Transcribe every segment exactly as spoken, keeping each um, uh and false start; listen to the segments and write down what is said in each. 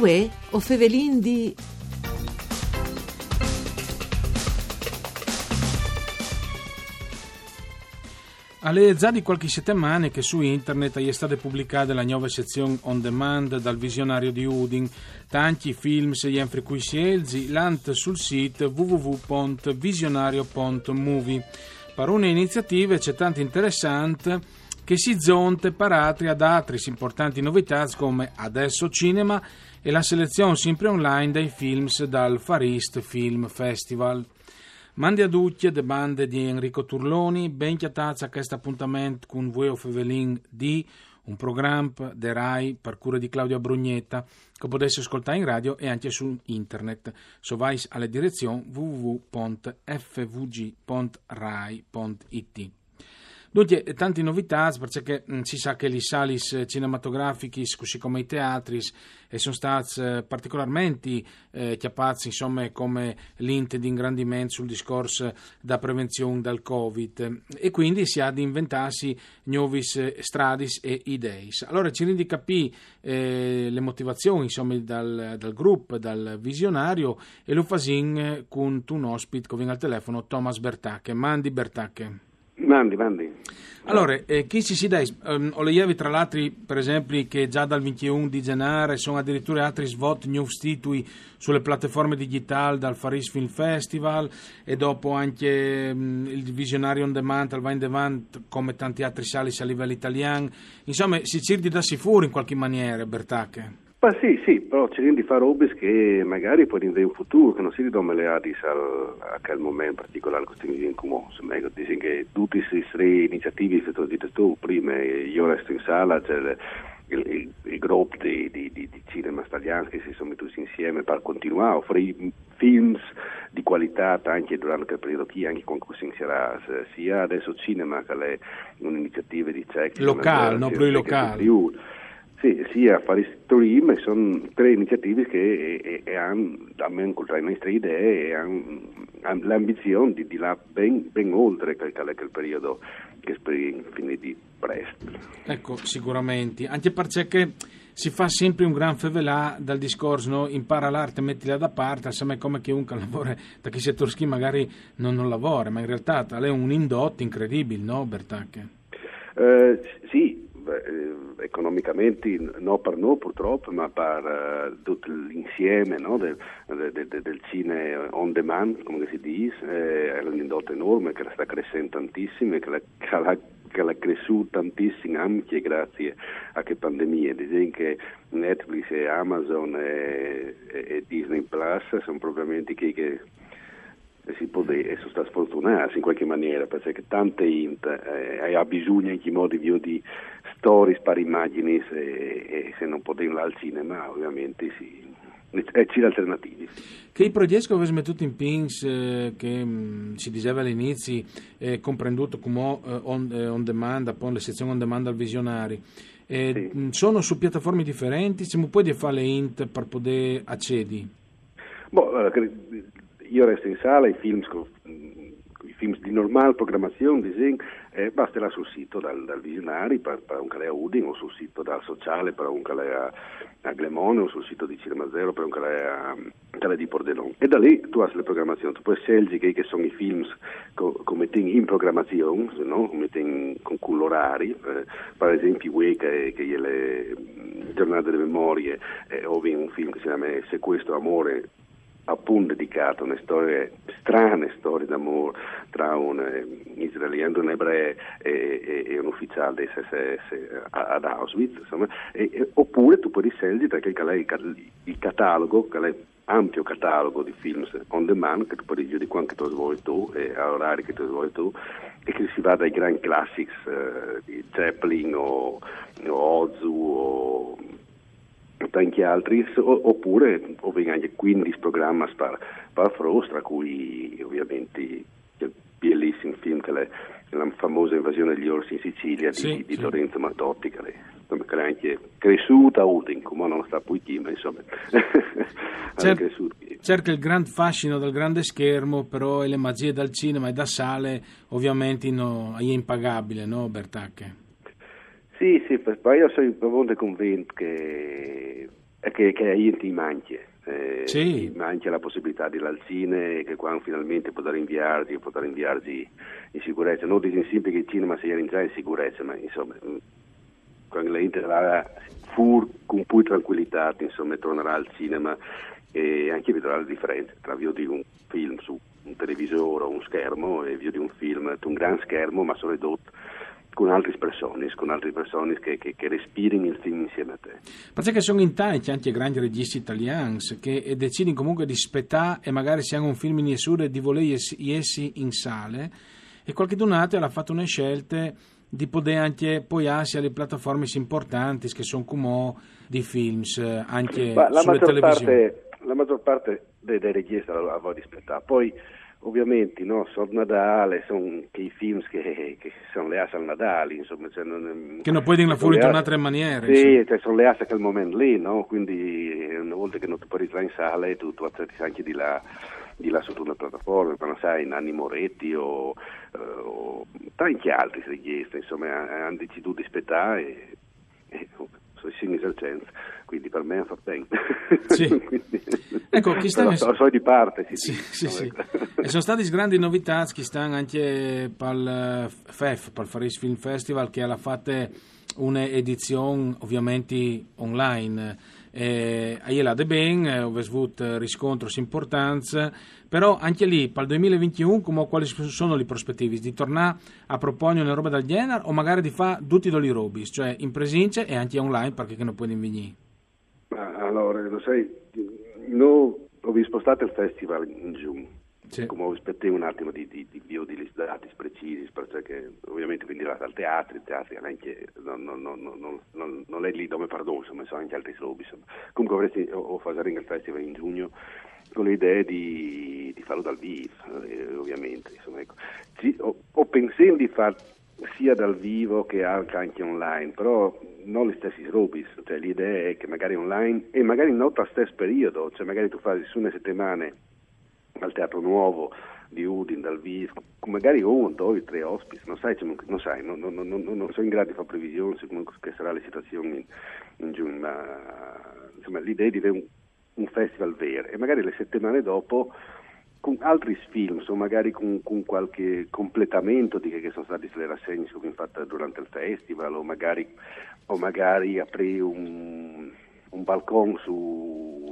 Uè, o fevelin di... Al è za di qualche setemane che su internet e je stade publicade la gnove sezion on demand dal Visionario di Udin. Tanti films jenfri cui sielzi, lant sul sit w w w pont visionario pont movie. Par une iniziative c'è tant interessant che si zonte par atri ad atris importanti novitâts come Adesso Cinema e la selezion simpri online dai films dal Far East Film Festival. Mandi a ducj de bande di Enrico Turloni, ben cjatâts a chest apontament cun Vuê o fevelin di, un program de Rai par cure di Claudia Brugnetta, che o podês scoltâ in radio e ancje su internet. Se o vais a la direzion w w w pont f v g pont rai pont i t. Duncje, tanti novitâts, parcè che, mm, si sa che lis salis, eh, cinematografichis, cussì come i teatris, a son stâts, eh, particolarmenti, eh, cjapâts, insome, come lint di ingrandiment sul discors da prevenzion dal Covid. E cuindi si à di inventâsi gnovis, eh, stradis e ideis. Alore, cirìn di capî, eh, la motivazion, insome, dal, dal grup, dal Visionario, e lu fasìn, eh, cuntun ospit che o vin al telefono, Thomas Bertache. Mandi Bertache. Mandi, mandi. Alore, eh, chi si si dai, ehm, o leievi tra l'altri, par esempli, che za dal vintun di Zenâr a son adiriture atris vot gnûfs titui su la plataforme digitâl dal Far East Film Festival, e dopo ancje, mm, il Visionario on Demand al va indevant come tantis atris salis a livel italian. Insome, si cîr di dâsi fûr in cualchi maniere, Bertache. Ma sì, sì, però cirìn di fâ robis che magari po in futûr, che no sedi dome leadis al, a chel moment particolâr che o stin vivint cumò. Insome, eco, disìn che dutis lis trê iniziativis che tu âs dit tu prime, Jo resto in sala, cioè il, il, il, il grup di, di, di, di cinemas talians che si son metûts insiemi par continuâ a ofrî films di cualitât ancje durant chel periodi chi, ancje cuant che o sin sierâts, sia Adesso Cinema, che e je une iniziative di cicli, locâl, no? Plui locâl. Sì, sia Far East Film, e son trê iniziativis che e, e, e àn, almen cul tra lis nestris ideis, e àn, àn la ambizion di, di lâ ben, ben oltri chel, chel, chel periodi che o sperìn finî di prest. Eco, sigurementri. Ancje parcè che si fâs simpri un grant fevelâ dal discors, no? Impara l'arte, metila da part, insome, come che un che al lavore ta chei setôrs chi magari no, no lavore, ma in realtât al è un indot incredibil, no, Bertache? Eh, sì, beh, eh, economichementri no par nô purtrop, ma par, eh, dut l'insiemi, no, del, del, del, del cine on demand, come che si dîs, eh, al è un indot enorme, che al sta cressint tantissim, che al, che al, che al è cressût tantissim ancje graciis a chê pandemie. Disìn che Netflix e Amazon e, e, e Disney Plus a son propriamenti chei che si pues dî, a son stâts fortunâts in cualchi maniere, parcè che tante int, eh, e à bisugne in chel modi di viodi storiis par imagjinis, e, e se no podìn lâ al cinema, ovviamentri si, e cîr alternativis. Chei progjets che o vês metût in pîts, eh, che, mm, si diseve al inizi, eh, comprendût cumò, eh, on, eh, on demand, apont la sezion on demand dal Visionari, eh, sì, mm, a son su plataformis diferentis, cemût o pues fâ la int par podê acedi? Boh, alore, che, Jo resto in sala, i films co-, mm, i films di normâl programazion, disìn, eh, baste lâ sul sit dal, dal Visionari par, par un che al è a Udin, o sul sit dal Sociale par un che al è a, a Glemone, o sul sit di Cinema Zero par un che al è a, che al è di Pordenon. E da li tu âs la programazion, tu pues sielzi chei che a son i films che, che o metìn in programazion, no? Che o metìn cun, cun l'orari, eh, par esempli, vuê che, che e je la, mm, zornade de memorie, eh, o vin un film che si clame Sequestro amore, apont dedicât a une storie, strane storie d'amôr tra un, eh, israelian, un ebree e, e, e un ufiziâl des S S a, ad Auschwitz, insome, e, e, opûr tu pues sielzi tra chel che al è il ca-, il cataloghi, che al è ampio cataloghi di films on demand, che tu pues viodi cuant che tu âs voie tu, e a oraris che tu âs voie tu, e che si va dai grants classics, eh, di Chaplin o, o Ozu o tanti altris, o, opûr o vin ancje cuindis programis par, par fruts, tra cui ovviamentri il bielissim film che al è la famosa Invasione degli orsi in Sicilia di, sì, di, sì, Lorenzo Mattotti, che al è, insome, che al è ancje cressût a Udin, cumò no sta plui chi, ma insome, al è cressût chi. Certo, il grant fascino dal grant schermo, però, e la magjie dal cinema e da sale, ovviamentri, no, e je impagabile, no, Bertache? Sì, sì, par, par jo o soi propit convint che È che, che a int i manca. Eh, sì. I manca la possibilità di lâ al cine, che quando finalmente podarìn viarzii, podarìn viarzii in sicurezza. Nô o disìn simpri che il cinema al è za in sicurezza, ma insome, mm, quando la int al va fûr cun plui trancuilitât, insome, al tornarà al cinema e ancje al viodrà la diference tra viodi un film su un televisôr o un schermo e viodi un film su un grant schermo, ma soredut cun altris personis, cun altris personis che, che, che respirin il film insiemi a te. Parcè che a son in tancj ancje grancj regjiscj talians che, eh, decidin comunque di spietâ e magari se a àn un film in jessure di volê jessi, jessi in sale, e cualchidun altri al à fat une sielte di podê ancje poiâsi a lis plataformis impuartantis che a son cumò di films, eh, ancje su lis televisions. Ma la maggior parte, la maggior parte dai, dai regjiscj al, al vûl spietâ. Po, ovviamente, no, sot Nadâl a son chei films che, che a son leâts al Nadâl, insome, cioè, no, che no puedin lâ fûr intune altre maniere, sì, insome. Cioè, a son leâts a chel moment li, no? Cuindi, eh, une volte che no tu puedis lâ in sale, tu, tu acetis ancje di lâ, di lâ sot une plataforme, ma no sai, Nanni Moretti o, eh, o tancj altris regjiscj, insome, a, a àn decidût di spietâ e, e, o son i sins al cent, cuindi par me al fâs ben. Sì. Cuindi, ecco, chest an a son, a son di part, sì, sì, sì, sì. Ecco. E a son stadis grandis novitâts chest an ancje pal, eh, FEF, pal Farice Film Festival, che al à fat une edizion ovviamente online. E a je lade ben, eh, o vês vût, eh, riscontris impuartants, però ancje li, pal doi mil e vincjeun, cumò cualis a son lis prospetivis? Di tornâ a proponi une robe dal gjenar o magari di fâ dutis dôs lis robis, cioè in presince e ancje online, parcè che no puedin vignî? Ma alore, lu sai, nô o vin spostât il festival in Jugn. Sì. Cumò o spietìn un atimo di, di, di viodi lis datis precisis, parcè che ovviamente o vin di lâ al teatri, il teatri al è ancje, no, no, nol è li dome par nô, insome, a son ancje altris robis, insome. Comunque o vin, o, o fasarìn il festival in Jugn, cun la idee di, di fâlu dal vîf, eh, ovviamente, insome, ecco. Sì, o, o pensìn di fâ sia dal vîf che ancje online, però no lis stessis robis, cioè la idee e je che magari online, e magari no tal stes periodi, cioè magari tu fasis une setemane al Teatro Nuovo di Udin dal vîf, cun magari un, doi, trê ospits, no sai, cioè, no sai, no, no, no, no, no o soi in grât di fâ previsions su come che e sarà la situazion in, in Jugn, ma, insome, la idee e je di vê un, un festival vêr, e magari la setemane dopo cun altris films, o magari cun, cun cualchi completament di chê che a son stadis lis rassegnis che o vin fat durant il festival, o magari, o magari aprî un, un balcon su,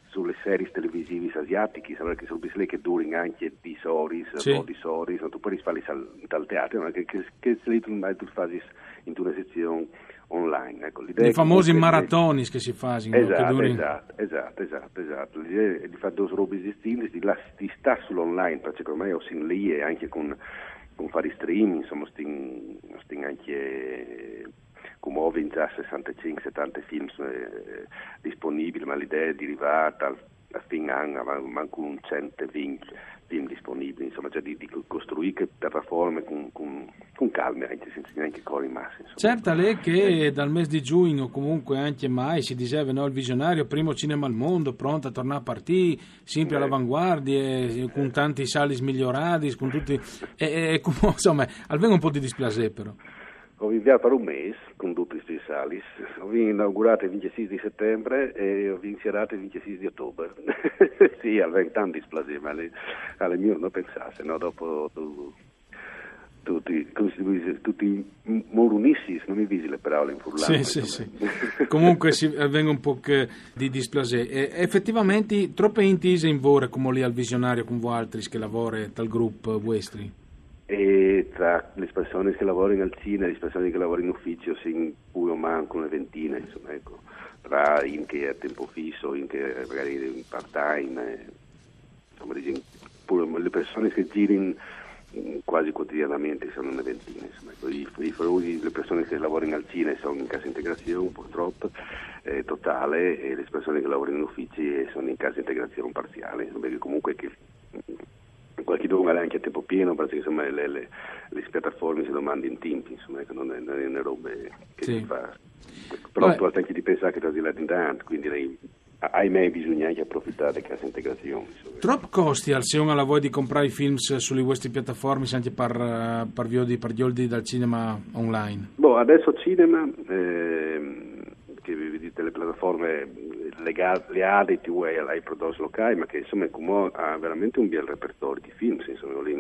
su lis series televisivis asiatichis, alore chês robis li che a durin ancje dîs oris, sì, dodis oris, no? Tu puedis fâlis al, tal teatri, no? Che, che, che li tu, tu fasis intune sezion online, ecco, la idee... Lis famôs maratonis che si fasin, no? Esat, che a durin... Esat, esat, esat, esat. La idee e je di fâ dôs robis distintis, di lâ, di stâ sul online, parcè che ormai o sin li e ancje cun, cun fâ i stream, insome, o stin, o stin ancje, cumò o vin za sessantecinc, setante films, eh, disponibils, ma la idee e je di rivâ tal a fin an, ma, mancul un cent e vincj film disponibils, insome, cioè di, di costruî chê plataforme cun, cun, cun calme, ancje, cence nancje cori masse, insome. Ciert al è che dal mês di Jugn, o comunque ancje Mai, si diseve, no, il visionario, primo cinema al mond, pront a tornâ a partî, simpri a l'avanguardie, cun tantis salis miglioradis, cun dutis, e, e, e cumò, insome, al ven un pôc di displasê, però. O vin viarzât par un mês cun dutis lis salis. O vin inaugurât il vincjesîs di setembre e o vin sierât il vincjesîs di otobar. Sì, al ven tant displasê, ma al è, al è miôr no pensâ, se no dopo tu, tu ti, come si dice, tu ti morunissis, no mi visi la parola in furlan. Sì, sì, sì. Comunque si, al ven un pôc, eh, di displasê. E efetivamente trope int ise in vore, cumò li al visionario cun voaltris che a lavore tal grup vuestri? E tra lis personis che a lavorin al cine e lis personis che a lavorin in ufizi, o sin plui o mancul une vintine, insome, ecco, tra int che a temp fis, int che magari in part-time, eh, insome, disìn, plui lis personis che a zirin, mm, cuasi cuotidianament a son une vintine, insome, ecco, i, i fruts, lis personis che a lavorin al cine a son in cassa integrazion, purtrop, eh, totale, e lis personis che a lavorin in ufizi a son in cassa integrazion parziale, insome, parcè che comunque che cualchidun al è ancje a temp pien, parcè che, insome, lis, lis, lis plataformis a domandin timp, insome, che no je, no je une robe che si fâs. Però tu âs ancje di pensâ che tu âs di lâ indenant, cuindi, ahimè, bisugne ancje aprofitâ de cheste integrazion, insome. Trop costial, se un al à voie di comprâ i films su lis vuestris plataformis ancje par, eh, par viodi, par gjoldi dal cinema online? Boh, adès cinema, ehm, che o vin dite lis plataformis, eh, legà, leade ti vuoi ai prodotti locali, ma che insomma Cumò ha veramente un bel repertorio di film, insomma, lì,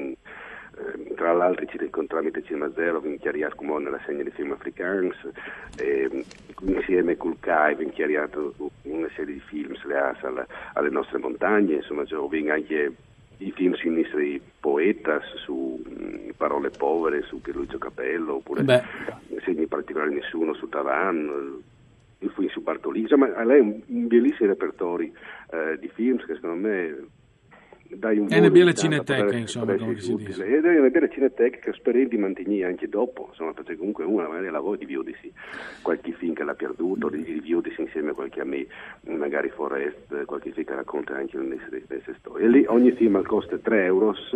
eh, tra l'altro ci, con, tramite Cinema Zero vien chiariato Cumò nella segna di film africans, eh, insieme col CAI vien chiariato una serie di film legati alle, alle nostre montagne, insomma, cioè, vien anche i film sui nostri poetas, su mm, Parole povere, su Pierluigi Capello, oppure Beh. Segni particolari nessuno, su Tavan, il film su Bartolini, insomma, lei è un, un bellissimo repertorio eh, di film che secondo me dai un È una volo bella di tanto, cineteca, potrebbe- insomma, potrebbe come essere si utile. dice. Ed è una bella cineteca che spero di mantenere anche dopo, insomma, perché comunque uno magari la vuole di viodersi qualche film che l'ha perduto, di, di viodersi insieme a qualche amico, magari Forest, qualche film che racconta anche le nostre, le nostre storie. E lì ogni film al costa tre euros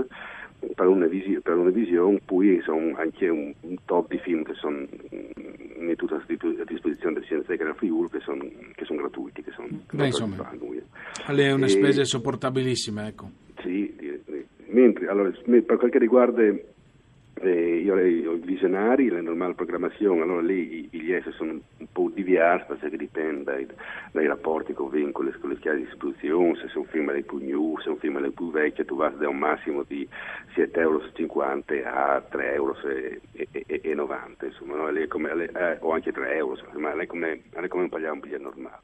per una, visi- per una visione, poi sono anche un, un top di film che sono mm, mettuti a disp- a disposizione del Cinema Zero Friuli, che sono che son gratuiti, che sono Beh, insomma, gratuiti per noi. È una E- spesa sopportabilissima, ecco. Sì, di- di- mentre allora, me- per quel che riguarda eh, io, i visionari, la normale programmazione, allora lì i biglietti sono un po' diversi perché dipende dai, dai rapporti che ho con le, con le case di distribuzione, se è un film è più new, se è un film è più vecchio, tu vai da un massimo di sette euro e cinquanta a tre euro e, e- e- e novanta, insomma, no? Lì è come, lì- eh, o anche tre euro, insomma, ma lì è come, lì è come pagare un biglietto normale.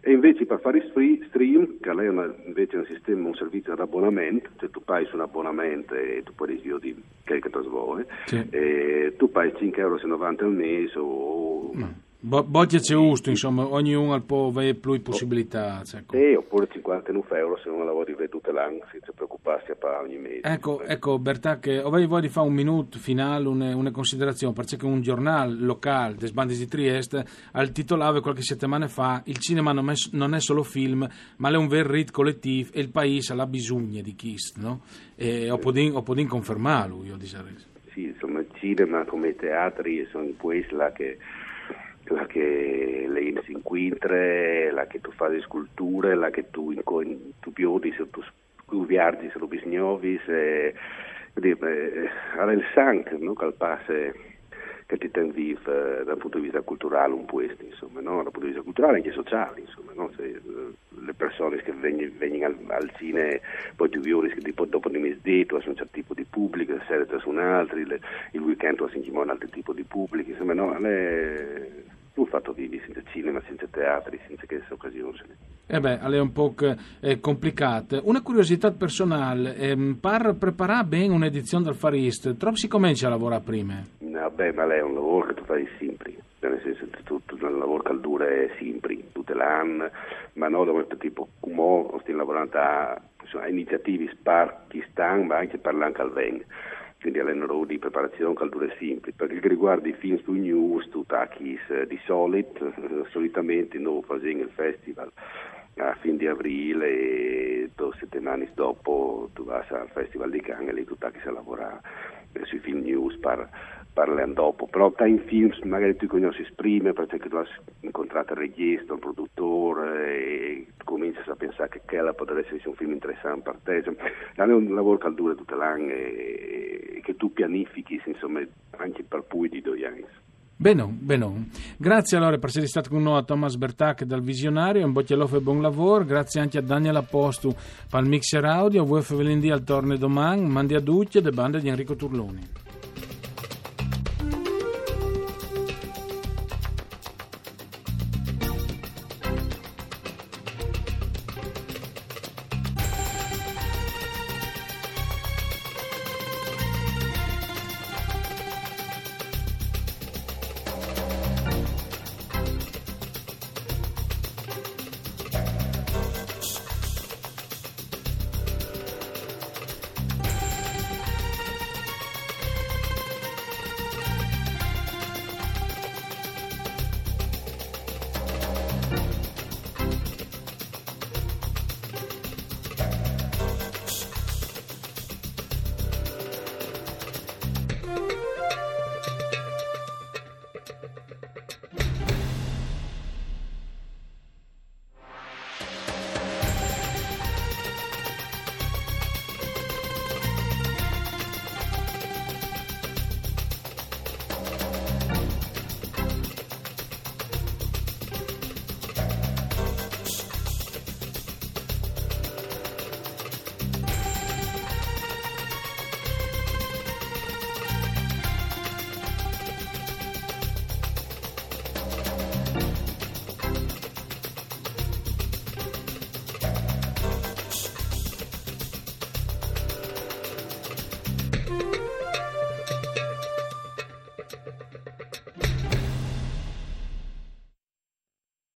E invece per fare free stream, che lì è una- invece un sistema, un servizio ad abbonamento, cioè tu paghi su un abbonamento e tu puoi viodi quel che ti vuoi, Sì. e tu paghi cinque euro e novanta al mese o Bo- Bocchie c'è gusto, insomma, ognuno ha po- avere più possibilità. Ecco. Sì, oppure cinquantanove euro se uno la vuole vedere tutte l'anno senza preoccuparsi a pagare ogni mese. Ecco, ecco, Bertà, che avevi voglia di fare un minuto finale, una, una considerazione, perché un giornale locale, des Bandis di Trieste, al titolava qualche settimana fa: "Il cinema non è, non è solo film, ma è un vero rit collettivo e il paese ha bisogno di questo", no? E ho potuto, ho potuto confermarlo, io direi. Sì, insomma, il cinema come i teatri sono in quella che là che le si incontra, là che tu fai sculture, là che tu, inco- tu viodi se tu, tu viaggi, se tu bisnovi, se quindi, eh, era il sangue, no? Che al passe che ti ten vivo eh, dal punto di vista culturale un po' questo, insomma, no? Dal punto di vista culturale e anche sociale, insomma, no? Se, eh, le persone che vengono, vengono al, al cinema, poi tu viodi che tipo, dopo di mezzogiorno c'è un certo tipo di pubblico, la sera c'è un altro, il, il weekend c'è un altro tipo di pubblico, insomma, no? È un fatto di, di senza cinema, senza teatri, senza queste occasioni. Eh beh, è un po' eh, complicato. Una curiosità personale, ehm, per preparare bene un'edizione del Far East, troppo si comincia a lavorare prima? No, beh, ma lì è un lavoro che tu fai sempre, cioè nel senso che tu, tu, è un lavoro che dura sempre, tutte l'anno, ma no, dove tipo, come stiamo lavorando a, insomma, iniziative per chi sta, ma anche per l'anno che viene. Quindi è un lavoro di preparazione che dura sempre. Per quel che riguarda i film sui news, tu tacchi eh, di solito, eh, solitamente noi facciamo il festival a fine di aprile e due settimane dopo tu vai al Festival di Cannes e lì tu tacchi a lavorare eh, sui film news per, per l'anno dopo. Però tra i film magari tu conosci prima perché tu hai incontrato il regista, il produttore e cominci a pensare che quella potrebbe essere un film interessante per te. Insomma, è un lavoro che dura tutto l'anno e che tu pianifichi, insomma, anche per più di due anni. Bene, bene. Grazie allora per essere stato con noi a Thomas Bertà dal Visionario, un boccialof e buon lavoro. Grazie anche a Daniel Apostu per il mixer audio. Voi fevelindì al torne domani, mandi a ducce de bande di Enrico Turloni.